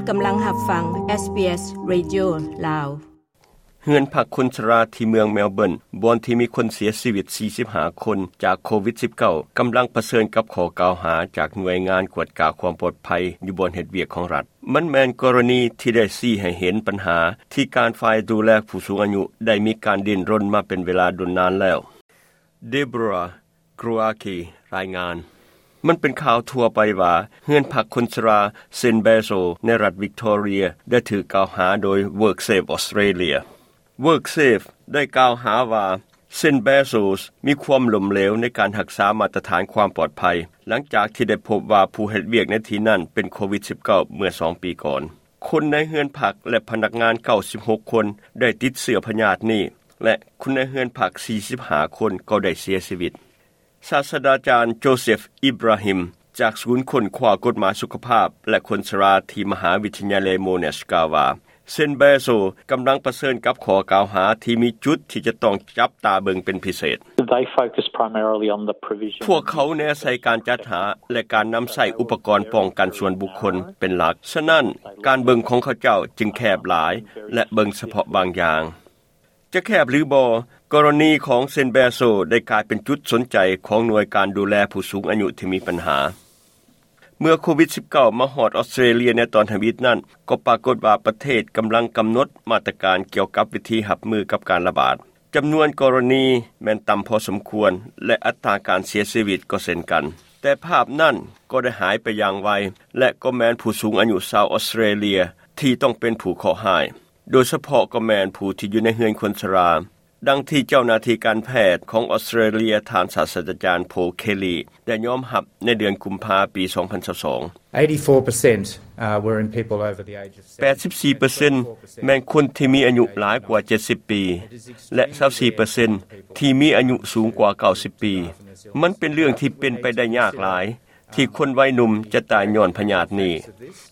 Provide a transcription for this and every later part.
ກຳລັງຮັບຟັງ ເອສບີເອສ ເຣດິໂອ ລາວ. ເຮືອນພັກຄົນຊະລາທີ່ເມືອງເມລເບີນ ບ່ອນທີ່ມີຄົນເສຍຊີວິດ ສີ່ສິບຫ້າ ຄົນຈາກໂຄວິດ ສິບເກົ້າ ກຳລັງປະເຊີນກັບຂໍ້ກ່າວຫາຈາກໜ່ວຍງານກວດກາຄວາມປອດໄພຢູ່ບ່ອນເຮັດວຽກຂອງລັດ. ມັນແມ່ນກໍລະນີທີ່ໄດ້ຊີ້ໃຫ້ເຫັນບັນຫາທີ່ການຝ່າຍດູແລຜູ້ສູງອາຍຸໄດ້ມີການດີ້ນລົນມາເປັນເວລາດົນນານແລ້ວ. ເດໂບຣາ ກຣາຄີ ລາຍງານ. ມັນເປັນຂ່າວທົ່ວໄປວ່າ ເຮືອນພັກຄົນຊະລາ ເຊນແບໂຊ ໃນລັດວິກຕໍເຣຍ ໄດ້ຖືກກ່າວຫາໂດຍ WorkSafe Australia. WorkSafe ໄດ້ກ່າວຫາວ່າ ເຊນແບໂຊ ມີຄວາມລົ້ມເຫຼວໃນການຮັກສາມາດຕະຖານຄວາມປອດໄພ ຫຼັງຈາກທີ່ໄດ້ພົບວ່າຜູ້ເຮັດວຽກໃນທີ່ນັ້ນເປັນໂຄວິດ ສິບເກົ້າ ເມື່ອສອງປີກ່ອນ. ຄົນໃນເຮືອນພັກ ແລະ ພະນັກງານ ເກົ້າສິບຫົກ ຄົນ ໄດ້ຕິດເຊື້ອພະຍາດນີ້ ແລະ ຄົນໃນເຮືອນພັກ ສີ່ສິບຫ້າ ຄົນ ກໍໄດ້ເສຍຊີວິດ. ສາດສະດາຈານ ໂຈເຊັຟ ອິບຣາຮິມ ຈາກສູນຄົ້ນຄວ້າກົດໝາຍສຸຂະພາບ ແລະ ຄົນຊະລາທີ່ມະຫາວິທະຍາໄລໂມນາຊ ກ່າວວ່າ ເຊນແບໂຊ ກຳລັງປະເຊີນກັບຂໍ້ກ່າວຫາທີ່ມີຈຸດທີ່ຈະຕ້ອງຈັບຕາເບິ່ງເປັນພິເສດ. They focus primarily on the provision. ພວກເຂົາແນໃສ່ການຈັດຫາ ແລະ ການນຳໃຊ້ອຸປະກອນປ້ອງກັນສ່ວນບຸກຄົນເປັນຫຼັກ. ສະນັ້ນ, ການເບິ່ງຂອງເຂົາເຈົ້າຈຶ່ງແຄບຫຼາຍ ແລະ ເບິ່ງສະເພາະບາງຢ່າງ. ຈະແຄບຫຼືບໍ່, ກໍລະນີຂອງເຊນແບໂຊ ໄດ້ກາຍເປັນຈຸດສົນໃຈຂອງໜ່ວຍການດູແລຜູ້ສູງອາຍຸທີ່ມີບັນຫາ. ເມື່ອໂຄວິດ ສິບເກົ້າ ມາຮອດອອສເຕຣເລຍໃນຕອນທຳອິດນັ້ນ, ກໍປາກົດວ່າປະເທດກຳລັງກຳນົດມາດຕະການກ່ຽວກັບວິທີຮັບມືກັບການລະບາດ. ຈຳນວນກໍລະນີແມ່ນຕ່ຳພໍສົມຄວນ ແລະ ອັດຕາການເສຍຊີວິດກໍເຊັ່ນກັນ. ແຕ່ພາບນັ້ນກໍໄດ້ຫາຍໄປຢ່າງໄວ ແລະ ກໍແມ່ນຜູ້ສູງອາຍຸຊາວອອສເຕຣເລຍທີ່ຕ້ອງເປັນຜູ້ເຄາະຮ້າຍ, ໂດຍສະເພາະກໍແມ່ນຜູ້ທີ່ຢູ່ໃນເຮືອນຄົນຊະລາ. ດັ່ງທີ່ເຈົ້າໜ້າທີ່ການແພດຂອງອອສເຕຣເລຍ ທ່ານສາດສະດາຈານ ໂພ ເຄລີ ໄດ້ຍອມຮັບໃນເດືອນກຸມພາ ປີສອງພັນຊາວສອງ. Eighty-four percent, uh, were in people over the age of seventy. ແປດສິບສີ່ເປີເຊັນ ແມ່ນຄົນທີ່ມີອາຍຸຫຼາຍກວ່າເຈັດສິບປີ ແລະ ຊາວສີ່ເປີເຊັນ ທີ່ມີອາຍຸສູງກວ່າເກົ້າສິບປີ. ມັນເປັນເລື່ອງທີ່ເປັນໄປໄດ້ຍາກຫຼາຍ ທີ່ຄົນໄວໜຸ່ມຈະຕາຍຍ້ອນພະຍາດນີ້.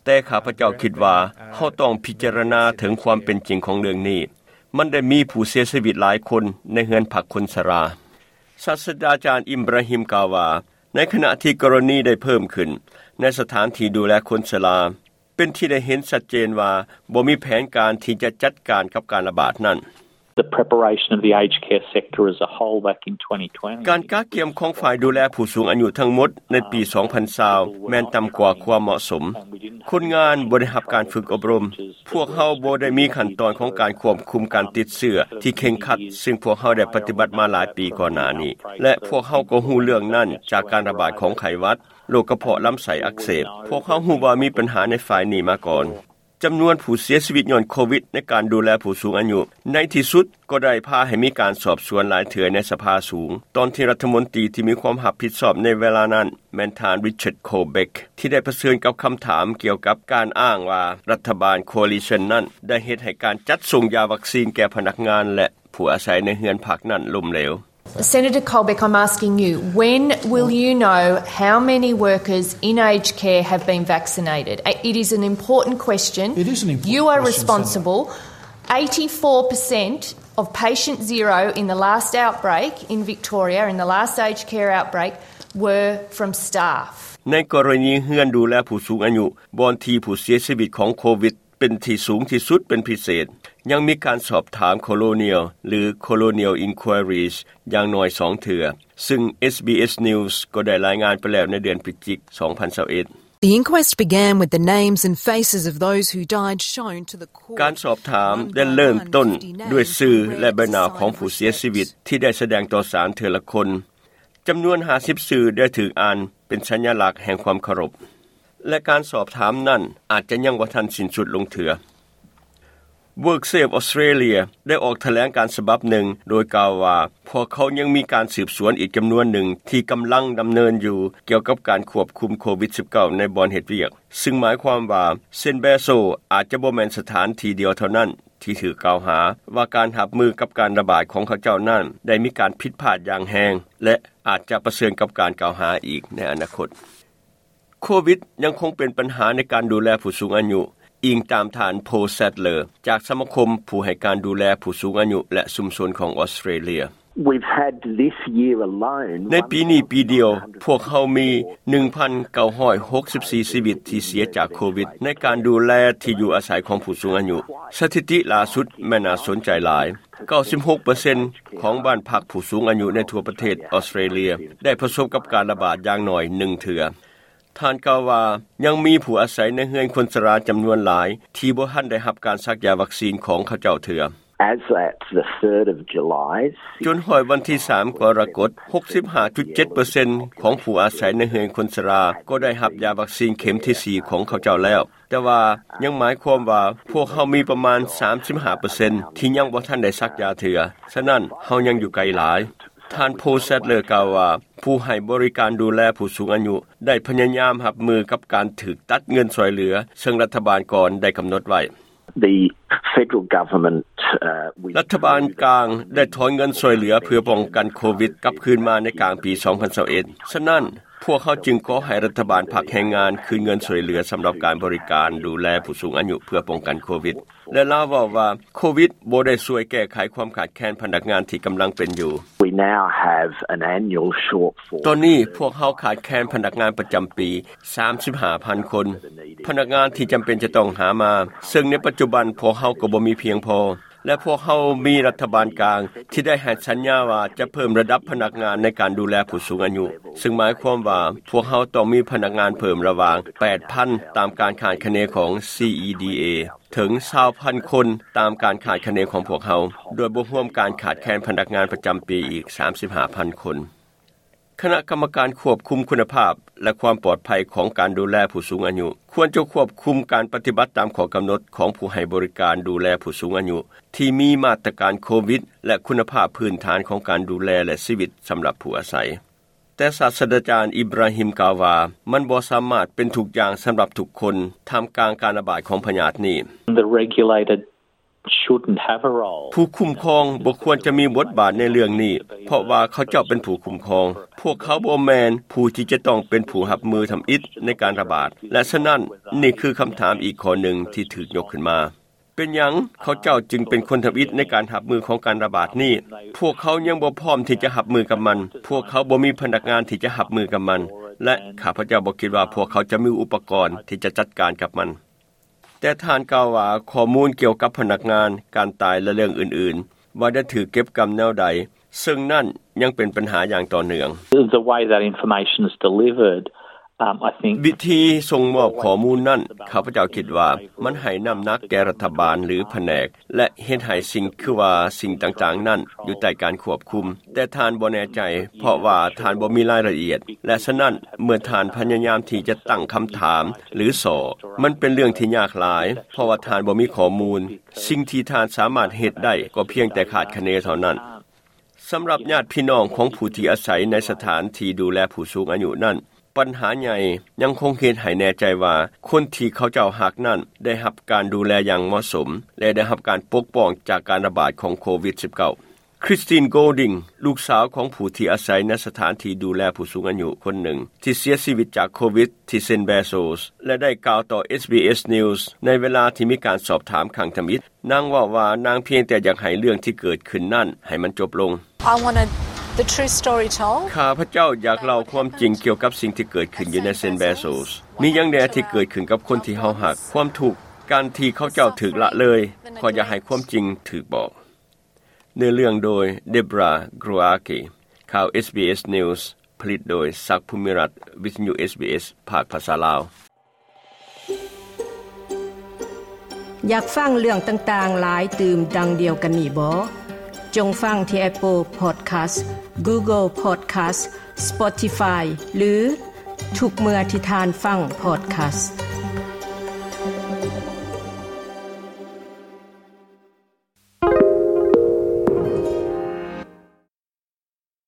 ແຕ່ຂ້າພະເຈົ້າຄິດວ່າເຮົາຕ້ອງພິຈາລະນາເຖິງຄວາມເປັນຈິງຂອງເລື່ອງນີ້. ມັນໄດ້ມີຜູ້ເສຍຊີວິດຫຼາຍຄົນໃນເຮືອນພັກຄົນຊະລາ. ສາດສະດາຈານ ອິບຣາຮິມ ກ່າວວ່າ ໃນຂະນະທີ່ກໍລະນີໄດ້ເພີ່ມຂຶ້ນໃນສະຖານທີ່ດູແລຄົນຊະລາ, ເປັນທີ່ໄດ້ເຫັນຊັດເຈນວ່າບໍ່ມີແຜນການທີ່ຈະຈັດການກັບການລະບາດນັ້ນ. The preparation of the aged care sector as a whole back in twenty twenty. ການກະກຽມຂອງຝ່າຍດູແລຜູ້ສູງອາຍຸທັງໝົດໃນປີສອງພັນຊາວ ແມ່ນຕ່ຳກວ່າຄວາມເໝາະສົມ. ຄົນງານບໍ່ໄດ້ຮັບການຝຶກອົບຮົມ. ພວກເຮົາບໍ່ໄດ້ມີຂັ້ນຕອນຂອງການຄວບຄຸມການຕິດເຊື້ອທີ່ເຄັ່ງຄັດ, ຊຶ່ງພວກເຮົາໄດ້ປະຕິບັດມາຫຼາຍປີກ່ອນໜ້ານີ້ ແລະ ພວກເຮົາກໍຮູ້ເລື່ອງນັ້ນຈາກການລະບາດຂອງໄຂ້ຫວັດ, ໂລກກະເພາະລຳໄສ້ອັກເສບ. ພວກເຮົາຮູ້ວ່າມີບັນຫາໃນຝ່າຍນີ້ມາກ່ອນ. ຈຳນວນຜູ້ເສຍຊີວິດຍ້ອນໂຄວິດໃນການດູແລຜູ້ສູງອາຍຸ ໃນທີ່ສຸດກໍໄດ້ພາໃຫ້ມີການສອບສວນຫຼາຍເທື່ອໃນສະພາສູງ, ຕອນທີ່ລັດຖະມົນຕີທີ່ມີຄວາມຮັບຜິດຊອບໃນເວລານັ້ນ ແມ່ນທ່ານ ຣິຊາດ ໂຄເບັກ ທີ່ໄດ້ປະເຊີນກັບຄຳຖາມກ່ຽວກັບການອ້າງວ່າລັດຖະບານ Coalition ນັ້ນໄດ້ເຮັດໃຫ້ການຈັດສົ່ງຢາວັກຊີນແກ່ພະນັກງານ ແລະ ຜູ້ອາໄສໃນເຮືອນພັກນັ້ນລົ້ມເຫຼວ. Senator Colbeck, I'm asking you, when will you know how many workers in aged care have been vaccinated? It is an important question. It is an important question, Senator. You are responsible. Eighty-four percent of patient zero in the last outbreak in Victoria, in the last aged care outbreak, were from staff. ໃນກໍລະນີເຮືອນດູແລຜູ້ສູງອາຍຸ ບ່ອນທີ່ຜູ້ເສຍຊີວິດຂອງໂຄວິດ ເປັນທີ່ສູງທີ່ສຸດເປັນພິເສດ, ຍັງມີການສອບຖາມ Colonial ຫຼື Colonial Inquiries ຢ່າງໜ້ອຍສອງເທື່ອ, ຊຶ່ງ ເອສບີເອສ News ກໍໄດ້ລາຍງານໄປແລ້ວໃນເດືອນພະຈິກ ສອງພັນຊາວເອັດ. The inquest began with the names and faces of those who died shown to the court. ການສອບຖາມໄດ້ເລີ່ມຕົ້ນດ້ວຍຊື່ ແລະ ໃບໜ້າຂອງຜູ້ເສຍຊີວິດທີ່ໄດ້ສະແດງຕໍ່ສານເທື່ອລະຄົນ. ຈຳນວນຫ້າສິບຊື່ໄດ້ຖືກອ່ານເປັນສັນຍະລັກແຫ່ງຄວາມເຄົາລົບ ແລະ ການສອບຖາມນັ້ນອາດຈະຍັງບໍ່ທັນສິ້ນສຸດລົງເທື່ອ. WorkSafe Australia ໄດ້ອອກຖະແຫຼງການສະບັບໜຶ່ງ ໂດຍກ່າວວ່າ ພວກເຂົາຍັງມີການສືບສວນອີກຈຳນວນໜຶ່ງທີ່ກຳລັງດຳເນີນຢູ່ ກ່ຽວກັບການຄວບຄຸມໂຄວິດ ສິບເກົ້າ ໃນບ່ອນເຮັດວຽກ, ຊຶ່ງໝາຍຄວາມວ່າ ເຊນແບໂຊ ອາດຈະບໍ່ແມ່ນສະຖານທີ່ດຽວເທົ່ານັ້ນ ທີ່ຖືກກ່າວຫາວ່າການຮັບມືກັບການລະບາດຂອງເຂົາເຈົ້ານັ້ນໄດ້ມີການຜິດພາດຢ່າງແຮງ ແລະ ອາດຈະປະເຊີນກັບການກ່າວຫາອີກໃນອະນາຄົດ. ໂຄວິດຍັງຄົງເປັນບັນຫາໃນການດູແລຜູ້ສູງອາຍຸ, ອີງຕາມທ່ານ ໂພ ແຊັດເລີ ຈາກສະມາຄົມຜູ້ໃຫ້ການດູແລຜູ້ສູງອາຍຸ ແລະ ຊຸມຊົນຂອງອອສເຕຣເລຍ. We've had this year alone ໃນປີນີ້ປີດຽວ ພວກເຮົາມີ ໜຶ່ງພັນເກົ້າຮ້ອຍຫົກສິບສີ່ ຊີວິດທີ່ເສຍຈາກໂຄວິດ ໃນການດູແລທີ່ຢູ່ອາໄສຂອງຜູ້ສູງອາຍຸ. ສະຖິຕິລ່າສຸດແມ່ນໜ້າສົນໃຈຫຼາຍ. ເກົ້າສິບຫົກເປີເຊັນຂອງບ້ານພັກຜູ້ສູງອາຍຸໃນທົ່ວປະເທດອອສເຕຣເລຍ ໄດ້ປະສົບກັບການລະບາດຢ່າງໜ້ອຍໜຶ່ງເທື່ອ. ທ່ານກ່າວວ່າ ຍັງມີຜູ້ອາໄສໃນເຮືອນຄົນຊະລາຈຳນວນຫຼາຍ ທີ່ບໍ່ທັນໄດ້ຮັບການສັກຢາວັກຊີນຂອງເຂົາເຈົ້າເທື່ອ. As at the third of July, ຈົນຮອດວັນທີສາມກໍລະກົດ ຫົກສິບຫ້າຈຸດເຈັດເປີເຊັນຂອງຜູ້ອາໄສໃນເຮືອນຄົນຊະລາ ກໍໄດ້ຮັບຢາວັກຊີນເຂັມທີສີ່ຂອງເຂົາເຈົ້າແລ້ວ. ແຕ່ວ່າຍັງໝາຍຄວາມວ່າ ພວກເຮົາມີປະມານສາມສິບຫ້າເປີເຊັນທີ່ຍັງບໍ່ທັນໄດ້ສັກຢາເທື່ອ, ສະນັ້ນເຮົາຍັງຢູ່ໄກຫຼາຍ. ທ່ານ ໂພ ແຊັດເລີ ກ່າວວ່າ ຜູ້ໃຫ້ບໍລິການດູແລຜູ້ສູງອາຍຸໄດ້ພະຍາຍາມຮັບມືກັບການຖືກຕັດເງິນຊ່ວຍເຫຼືອ ເຊິ່ງລັດຖະບານກ່ອນໄດ້ກຳນົດໄວ້. The federal government, uh, with ລັດຖະບານກາງໄດ້ຖອນເງິນຊ່ວຍເຫຼືອເພື່ອປ້ອງກັນໂຄວິດກັບຄືນມາໃນກາງປີສອງພັນຊາວເອັດ. ສະນັ້ນ, ພວກເຮົາຈຶ່ງຂໍໃຫ້ລັດຖະບານພັກແຮງງານຄືນເງິນຊ່ວຍເຫຼືອສຳລັບການບໍລິການດູແລຜູ້ສູງອາຍຸເພື່ອປ້ອງກັນໂຄວິດ. ແລະ ລາວເວົ້າວ່າ ໂຄວິດບໍ່ໄດ້ຊ່ວຍແກ້ໄຂຄວາມຂາດແຄນພະນັກງານທີ່ກຳລັງເປັນຢູ່. We now have an annual shortfall. ຕອນນີ້ພວກເຮົາຂາດແຄນພະນັກງານປະຈຳປີ ສາມສິບຫ້າພັນຄົນ ພະນັກງານທີ່ຈຳເປັນຈະຕ້ອງຫາມາ, ເຊິ່ງໃນປັດຈຸບັນພວກເຮົາກໍບໍ່ມີພຽງພໍ ແລະ ພວກເຮົາມີລັດຖະບານກາງທີ່ໄດ້ໃຫ້ສັນຍາວ່າຈະເພີ່ມລະດັບພະນັກງານໃນການດູແລຜູ້ສູງອາຍຸ, ເຊິ່ງໝາຍຄວາມວ່າພວກເຮົາຕ້ອງມີພະນັກງານເພີ່ມລະຫວ່າງ ແປດພັນ ຕາມການຄາດຄະເນຂອງ ຊີອີດີເອ ເຖິງ ຊາວພັນຄົນ ຕາມການຄາດຄະເນຂອງພວກເຮົາ, ໂດຍບໍ່ຮວມການຂາດແຄນພະນັກງານປະຈຳປີອີກ ສາມສິບຫ້າພັນຄົນ. ຄະນະກຳມະການຄວບຄຸມຄຸນນະພາບ ແລະ ຄວາມປອດໄພຂອງການດູແລຜູ້ສູງອາຍຸ ຄວນຈະຄວບຄຸມການປະຕິບັດຕາມຂໍ້ກຳນົດຂອງຜູ້ໃຫ້ບໍລິການດູແລຜູ້ສູງອາຍຸ ທີ່ມີມາດຕະການໂຄວິດ ແລະ ຄຸນນະພາບພື້ນຖານຂອງການດູແລ ແລະ ຊີວິດສຳລັບຜູ້ອາໄສ. ແຕ່ສາດສະດາຈານ ອິບຣາຮິມ ກ່າວວ່າ ມັນບໍ່ສາມາດເປັນທຸກຢ່າງສຳລັບທຸກຄົນ ທ່າມກາງການລະບາດຂອງພະຍາດນີ້. The regulator shouldn't have a role. ຜູ້ຄຸ້ມຄອງບໍ່ຄວນຈະມີບົດບາດໃນເລື່ອງນີ້, ເພາະວ່າເຂົາເຈົ້າເປັນຜູ້ຄຸ້ມຄອງ. ພວກເຂົາບໍ່ແມ່ນຜູ້ທີ່ຈະຕ້ອງເປັນຜູ້ຮັບມືທຳອິດໃນການລະບາດ, ແລະ ສະນັ້ນ, ນີ້ຄືຄຳຖາມອີກຂໍ້ໜຶ່ງທີ່ຖືກຍົກຂຶ້ນມາ. ເປັນຫຍັງເຂົາເຈົ້າຈຶ່ງເປັນຄົນທຳອິດໃນການຮັບມືຂອງການລະບາດນີ້? ພວກເຂົາຍັງບໍ່ພ້ອມທີ່ຈະຮັບມືກັບມັນ. ພວກເຂົາບໍ່ມີພະນັກງານທີ່ຈະຮັບມືກັບມັນ, ແລະ ຂ້າພະເຈົ້າບໍ່ຄິດວ່າພວກເຂົາຈະມີອຸປະກອນທີ່ຈະຈັດການກັບມັນ. ແຕ່ທ່ານກ່າວວ່າ ຂໍ້ມູນກ່ຽວກັບພະນັກງານ, ການຕາຍ ແລະ ເລື່ອງອື່ນໆ ວ່າໄດ້ຖືກເກັບກຳແນວໃດ, ເຊິ່ງນັ້ນຍັງເປັນບັນຫາຢ່າງຕໍ່ເນື່ອງ. The way that information is delivered, um, I think ວິທີສົ່ງມອບຂໍ້ມູນນັ້ນ, ຂ້າພະເຈົ້າຄິດວ່າມັນໃຫ້ນ້ຳໜັກແກ່ລັດຖະບານ ຫຼື ພະແນກ ແລະ ເຮັດໃຫ້ສິ່ງ ຄືວ່າສິ່ງຕ່າງໆນັ້ນຢູ່ໃຕ້ການຄວບຄຸມ. ແຕ່ທ່ານບໍ່ແນ່ໃຈ ເພາະວ່າທ່ານບໍ່ມີລາຍລະອຽດ ແລະ ສະນັ້ນ ເມື່ອທ່ານພະຍາຍາມທີ່ຈະຕັ້ງຄຳຖາມ ຫຼື ສໍ້, ມັນເປັນເລື່ອງທີ່ຍາກຫຼາຍ ເພາະວ່າທ່ານບໍ່ມີຂໍ້ມູນ. ສິ່ງທີ່ທ່ານສາມາດເຮັດໄດ້ກໍພຽງແຕ່ຄາດຄະເນເທົ່ານັ້ນ. ສຳລັບຍາດພີ່ນ້ອງຂອງຜູ້ທີ່ອາໄສໃນສະຖານທີ່ດູແລຜູ້ສູງອາຍຸນັ້ນ, ບັນຫາໃຫຍ່ຍັງຄົງເຮັດໃຫ້ແນ່ໃຈວ່າ ຄົນທີ່ເຂົາເຈົ້າຮັກນັ້ນໄດ້ຮັບການດູແລຢ່າງເໝາະສົມ ແລະ ໄດ້ຮັບການປົກປ້ອງຈາກການລະບາດຂອງໂຄວິດສິບເກົ້າ. ຄຣິສຕິນ ໂກລດິງ ລູກສາວຂອງຜູ້ທີ່ອາໄສໃນສະຖານທີ່ດູແລຜູ້ສູງອາຍຸຄົນໜຶ່ງ ທີ່ເສຍຊີວິດຈາກໂຄວິດທີ່ເຊັນ ເບໂຊສ ແລະ ໄດ້ກ່າວຕໍ່ ເອສບີເອສ News ໃນເວລາທີ່ມີການສອບຖາມຄັ້ງທຳອິດ. ນາງເວົ້າວ່ານາງພຽງແຕ່ຢາກໃຫ້ເລື່ອງທີ່ເກີດຂຶ້ນນັ້ນໃຫ້ມັນຈົບລົງ. I wanted the true story told. ຂ້າພະເຈົ້າຢາກເລົ່າຄວາມຈິງກ່ຽວກັບສິ່ງທີ່ເກີດຂຶ້ນຢູ່ໃນເຊັນ ເບໂຊສ. ມີຫຍັງແດ່ທີ່ເກີດຂຶ້ນກັບຄົນທີ່ເຮົາຮັກ? ຄວາມທຸກ, ການທີ່ເຂົາເຈົ້າຖືກລະເລີຍ. ຂ້ອຍຢາກໃຫ້ຄວາມຈິງຖືກບອກ. ເນື້ອເລື່ອງໂດຍ ເດບຣາ ກຣູອາກີ. ຂ່າວ ເອສບີເອສ News ຜະລິດໂດຍ ສັກ ພູມິລັດ, ວິທະຍຸ ເອສບີເອສ ພາກພາສາລາວ. ຢາກຟັງເລື່ອງຕ່າງໆຫຼາຍຕື່ມດັ່ງດຽວກັນນີ້ບໍ? ຈົ່ງຟັງທີ່ Apple Podcast, Google Podcast, Spotify ຫຼື ທຸກເມື່ອທີ່ທ່ານຟັງ Podcast.